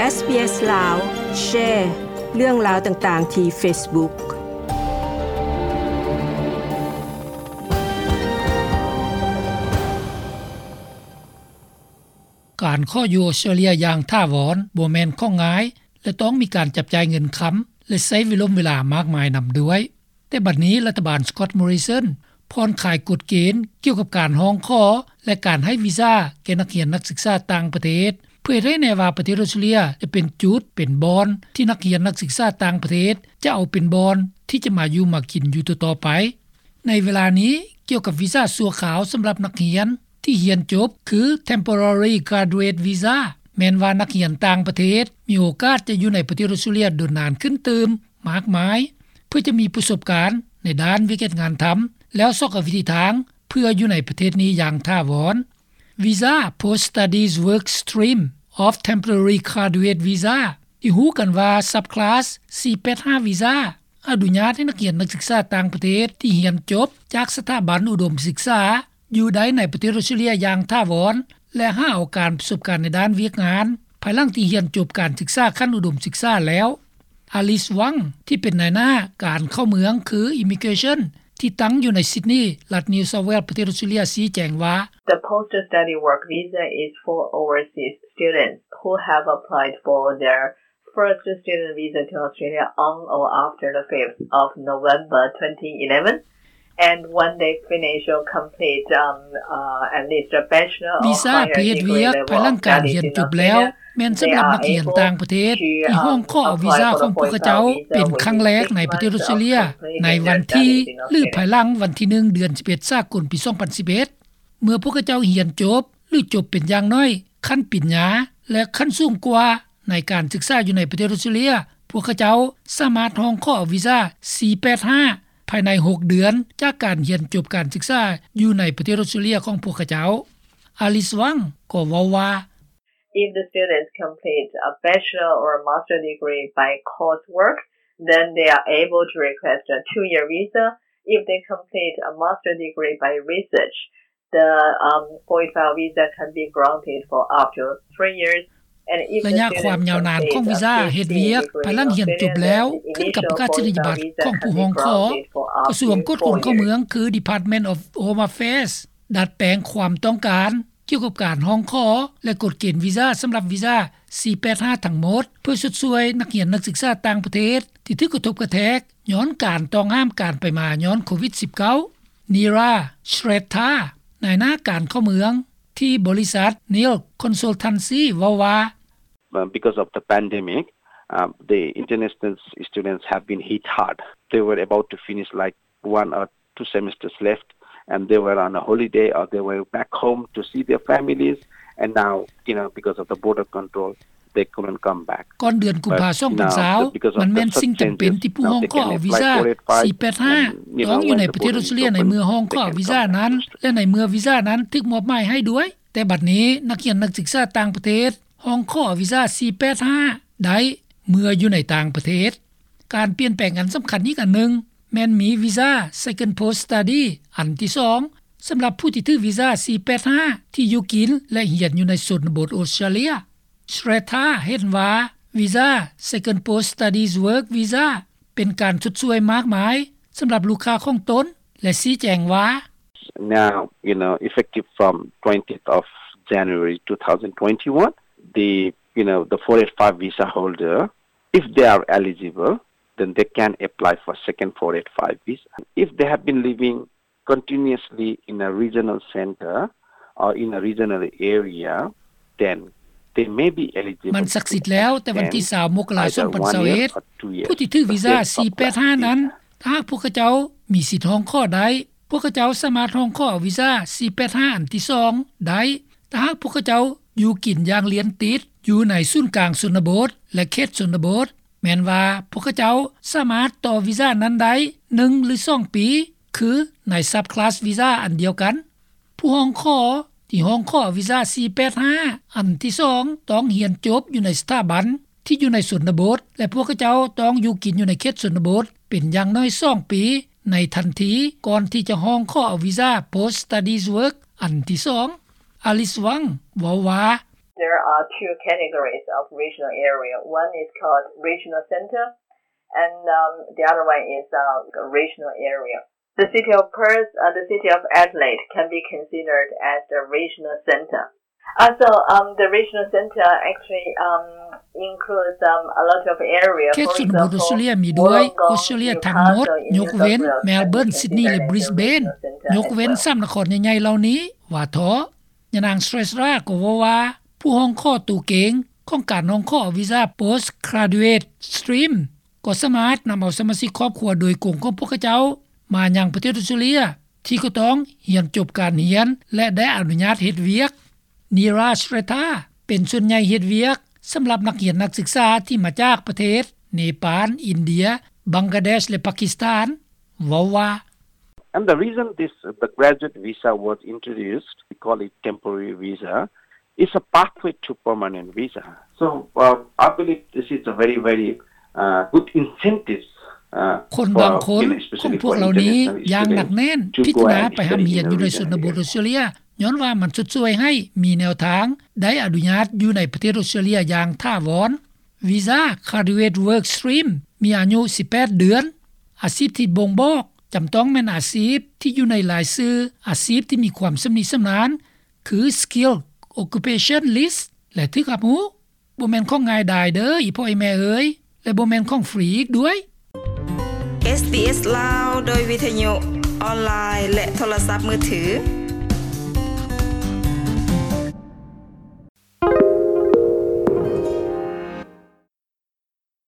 ເອສບີເອສ ລາວ ແຊເລື່ອງລາວຕ່າງໆທີ່ເຟສບຸກ. ການຂໍຢູ່ອອສເຕຣເລຍຢ່າງຖາວອນບໍ່ແມ່ນຂອງງ່າຍ ແລະ ຕ້ອງມີການຈັບຈ່າຍເງິນຄຳ ແລະ ໃຊ້ເວລົມເວລາມາກມາຍນຳດ້ວຍ. ແຕ່ບັດນີ້ລັດຖະບານ Scott Morrison ຜ່ອນຄາຍກົດເກນກ່ຽວກັບການຮ້ອງຂໍ ແລະ ການໃຫ້ວີຊາແກ່ນັກຮຽນນັກສຶກສາຕ່າງປະເທດ. ເຜີຍໄດ້ແນ່ວ່າປະເທດອອສເຕຣເລຍຈະເປັນຈຸດ, ເປັນບ່ອນທີ່ນັກຮຽນນັກສຶກສາຕ່າງປະເທດຈະເອົາເປັນບ່ອນທີ່ຈະມາຢູ່ມາກິນຢູ່ຕໍ່ໆໄປ. ໃນເວລານີ້, ກ່ຽວກັບວີຊາຊົ່ວຄາວສຳລັບນັກຮຽນທີ່ຮຽນຈົບ ຄື Temporary Graduate Visa, ແມ່ນວ່ານັກຮຽນຕ່າງປະເທດມີໂອກາດຈະຢູ່ໃນປະເທດອອສເຕຣເລຍດົນນານຂຶ້ນຕື່ມມາກມາຍ ເພື່ອຈະມີປະສົບການໃນດ້ານວຽກເຮັດງານທຳ ແລ້ວຊອກຫາວິທີທາງເພື່ອຢູ່ໃນປະເທດນີ້ຢ່າງຖາວອນ. Visa Post Studies Work Stream of Temporary Graduate Visa ທີ່ຮູ້ກັນວ່າ Subclass ສີ່ແປດຫ້າ Visa ອະນຸຍາດໃຫ້ນັກຮຽນນັກສຶກສາຕ່າງປະເທດທີ່ຮຽນຈົບຈາກສະຖາບັນອຸດົມສຶກສາ ຢູ່ໄດ້ໃນປະເທດອອສເຕຣເລຍຢ່າງຖາວອນ ແລະ ຫາໂອກາດປະສົບການໃນດ້ານວຽກງານ ພາຍຫຼັງທີ່ຮຽນຈົບການສຶກສາຂັ້ນອຸດົມສຶກສາແລ້ວ. Alice Wang ທີ່ເປັນນາຍໜ້າການເຂົ້າເມືອງ ຄື Immigration ທີ່ຕັ້ງຢູ່ໃນ Sydney ລັດ New South Wales ປະເທດອອສເຕຣເລຍ ຊີ້ແຈງວ່າ The post-study work visa is for overseas students who have applied for their first student visa to Australia on or after the fifth of November twenty eleven, and when they finish or complete, um, uh, at least a bachelor or higher degree level of studies in Australia, ແມ່ນສຳລັບນັກຮຽນຕ່າງປະເທດທີ່ຮ້ອງຂໍເອົາວີຊາຂອງພວກເຂົາເຈົ້າເປັນຄັ້ງແລກໃນປະເທດອອສເຕຣເລຍ ໃນວັນທີ ຫຼື ພາຍຫຼັງວັນທີໜຶ່ງ ເດືອນສິບເອັດ ສາກົນ ປີສອງພັນສິບເອັດ ເມື່ອພວກເຂົາເຈົ້າຮຽນຈົບ ຫຼື ຈົບເປັນຢ່າງໜ້ອຍຂັ້ນປະລິນຍາ ແລະ ຂັ້ນສູງກວ່າ ໃນການສຶກສາຢູ່ໃນປະເທດອອສເຕຣເລຍ, ພວກເຂົາເຈົ້າສາມາດຮ້ອງຂໍເອົາວີຊາ ສີ່ແປດຫ້າ ພາຍໃນຫົກເດືອນຈາກການຮຽນຈົບການສຶກສາຢູ່ໃນປະເທດອອສເຕຣເລຍຂອງພວກເຂົາເຈົ້າ. Alice Wang ກໍເວົ້າວ່າ If the students complete a bachelor or a master degree by coursework, then they are able to request a two-year visa. If they complete a master degree by research, the, um, four eight five visa can be granted for up to three years. And if the students complete a master degree by research, ໄລຍະຄວາມຍາວນານຂອງວີຊາເຮັດວຽກພາຍຫຼັງຮຽນຈົບແລ້ວ ຂຶ້ນກັບປະກາດນີຍະບັດຂອງຜູ້ຮ້ອງຂໍ. ກະຊວງກວດຄົນເຂົ້າເມືອງ ຄື Department of Home Affairs ດັດແປງຄວາມຕ້ອງການ ກ່ຽວກັບການຮ້ອງຂໍ ແລະ ກົດເກນວີຊາສຳລັບວີຊາ ສີ່ແປດຫ້າ ທັງໝົດ ເພື່ອຊົດຊ່ວຍນັກຮຽນນັກສຶກສາຕ່າງປະເທດທີ່ຖືກກະທົບກະແທກຍ້ອນການຕ້ອງຫ້າມການໄປມາຍ້ອນໂຄວິດສິບເກົ້າ. Neera Shrestha ນາຍໜ້າການເຂົ້າເມືອງທີ່ບໍລິສັດ Neil Consultancy ເວົ້າວ່າ Uh, because of the pandemic, uh, the international students have been hit hard. They were about to finish, like, one or two semesters left, and they were on a holiday or they were back home to see their families, and now, you know, because of the border control, they couldn't come back. ກ່ອນເດືອນກຸມພາ ສອງພັນຊາວ ມັນແມ່ນສິ່ງຈຳເປັນທີ່ຜູ້ຮ້ອງຂໍເອົາວີຊາ ສີ່ແປດຫ້າ ຕ້ອງຢູ່ໃນປະເທດອອສເຕຣເລຍໃນເມື່ອຮ້ອງຂໍເອົາວີຊານັ້ນ ແລະ ໃນເມື່ອວີຊານັ້ນຖືກມອບໝາຍໃຫ້ດ້ວຍ. ແຕ່ບັດນີ້ນັກຮຽນນັກສຶກສາຕ່າງປະເທດ ຮ້ອງຂໍເອົາວີຊາ ສີ່ແປດຫ້າ ໄດ້ເມື່ອຢູ່ໃນຕ່າງປະເທດ. ການປ່ຽນແປງອັນສຳຄັນອີກອັນໜຶ່ງ ແມ່ນມີວີຊາ Second Post Study ອັນທີສອງ ສຳລັບຜູ້ທີ່ຖືກວີຊາ ສີ່ແປດຫ້າ ທີ່ຢູ່ກິນ ແລະ ຮຽນຢູ່ໃນຊົນນະບົດອອສເຕຣເລຍ. Shrestha ເຫັນວ່າ ວີຊາ Second Post Studies Work Visa ເປັນການຊົດຊ່ວຍມາກມາຍສຳລັບລູກຄ້າຂອງຕົນ ແລະ ຊີ້ແຈງວ່າ Now, you know, effective from twentieth of January two thousand twenty-one, the, you know, the four eight five visa holder, if they are eligible, then they can apply for second four eight five visa. If they have been living continuously in a regional center or in a regional area, then they may be eligible. ມັນສັກສິດແລ້ວ ແຕ່ວັນທີຊາວ ມົກກະລາ ສອງພັນຊາວເອັດ ຜູ້ທີ່ຖືກວີຊາ ສີ່ແປດຫ້າ ນັ້ນ ຖ້າຫາກພວກເຂົາເຈົ້າມີສິດຮ້ອງຂໍໄດ້ ພວກເຂົາເຈົ້າສາມາດຮ້ອງຂໍເອົາວີຊາ ສີ່ແປດຫ້າ ອັນທີສອງໄດ້ ຖ້າຫາກພວກເຂົາເຈົ້າຢູ່ກິນຢ່າງລຽນຕິດ ຢູ່ໃນສູນກາງຊົນນະບົດ ແລະ ເຂດຊົນນະບົດ, ແມ່ນວ່າພວກເຂົາເຈົ້າສາມາດຕໍ່ວີຊານັ້ນໄດ້ໜຶ່ງ ຫຼື ສອງປີ ຄືໃນ Subclass Visa ອັນດຽວກັນ. ຜູ້ຮ້ອງຂໍທີ່ຮ້ອງຂໍວີຊາ ສີ່ແປດຫ້າ ອັນທີສອງ ຕ້ອງຮຽນຈົບຢູ່ໃນສະຖາບັນທີ່ຢູ່ໃນຊົນນະບົດ ແລະ ພວກເຂົາເຈົ້າຕ້ອງຢູ່ກິນຢູ່ໃນເຂດຊົນນະບົດເປັນຢ່າງໜ້ອຍສອງປີ ໃນທັນທີກ່ອນທີ່ຈະຮ້ອງຂໍເອົາວີຊາ Post Studies Work ອັນທີສອງ. Alice Wang ເວົ້າວ່າ There are two categories of regional area. One is called regional center, and um, the other one is uh, regional area. The city of Perth, uh, the city of Adelaide can be considered as the regional center. Uh, so um, the regional center actually um, includes um, a lot of area. ເຂດຊົນນະບົດອອສເຕຣເລັຽມີດ້ວຍ ອອສເຕຣເລັຽທັງໝົດ ຍົກເວັ້ນ Melbourne, Sydney ແລະ Brisbane. ຍົກເວັ້ນສາມນະຄອນໃຫຍ່ໆເຫຼົ່ານີ້ວ່າເຖາະ. ຍານາງ Srettha ກໍເວົ້າວ່າ ຜູ້ຮ້ອງຂໍໂຕເກັ່ງຂອງການຮ້ອງຂໍວີຊາ Postgraduate Stream ກໍສາມາດນຳເອົາສະມາຊິກຄອບຄົວໂດຍກົງຂອງພວກເຂົາເຈົ້າມາຍັງປະເທດອອສເຕຣເລັຽ ທີ່ກໍຕ້ອງຮຽນຈົບການຮຽນ ແລະ ໄດ້ອະນຸຍາດເຮັດວຽກ. Neera Srettha ເປັນສ່ວນໃຫຍ່ເຮັດວຽກສຳລັບນັກຮຽນນັກສຶກສາທີ່ມາຈາກປະເທດເນປານ, ອິນເດຍ, ບັງກາເດຊ ແລະ ປາກິສຖານ ເວົ້າວ່າ And the reason this the graduate visa was introduced, we call it temporary visa, is a pathway to permanent visa. So uh, I believe this is a very, very uh, good incentive. ຄົນບາງຄົນຂອງພວກເຫຼົ່ານີ້ຢ່າງໜັກແໜ້ນພິຈາລະນາໄປຮ່ຳຮຽນຢູ່ໃນຊົນນະບົດອອສເຕຣເລັຽ ຍ້ອນວ່າມັນຊົດຊ່ວຍໃຫ້ມີແນວທາງໄດ້ອະນຸຍາດຢູ່ໃນປະເທດອອສເຕຣເລັຽຢ່າງຖາວອນ. ວີຊາ Graduate Work Stream ມີອາຍຸສິບແປດເດືອນ. ອາຊີບທີ່ບົ່ງບອກຈຳຕ້ອງແມ່ນອາຊີບທີ່ຢູ່ໃນລາຍຊື່ອາຊີບທີ່ມີຄວາມຊຳນິຊຳນານ ຄື Skilled Occupation List ແລະ ຖືກຮັບຮູ້. ບໍ່ແມ່ນຂອງງ່າຍດາຍເດີ້ ອີ່ພໍ່ອີ່ແມ່ເອີຍ ແລະ ບໍ່ແມ່ນຂອງຟຣີອີກດ້ວຍ. ເອສບີເອສລາວ ໂດຍວິທະຍຸອອນລາຍ ແລະ ໂທລະສັບມືຖື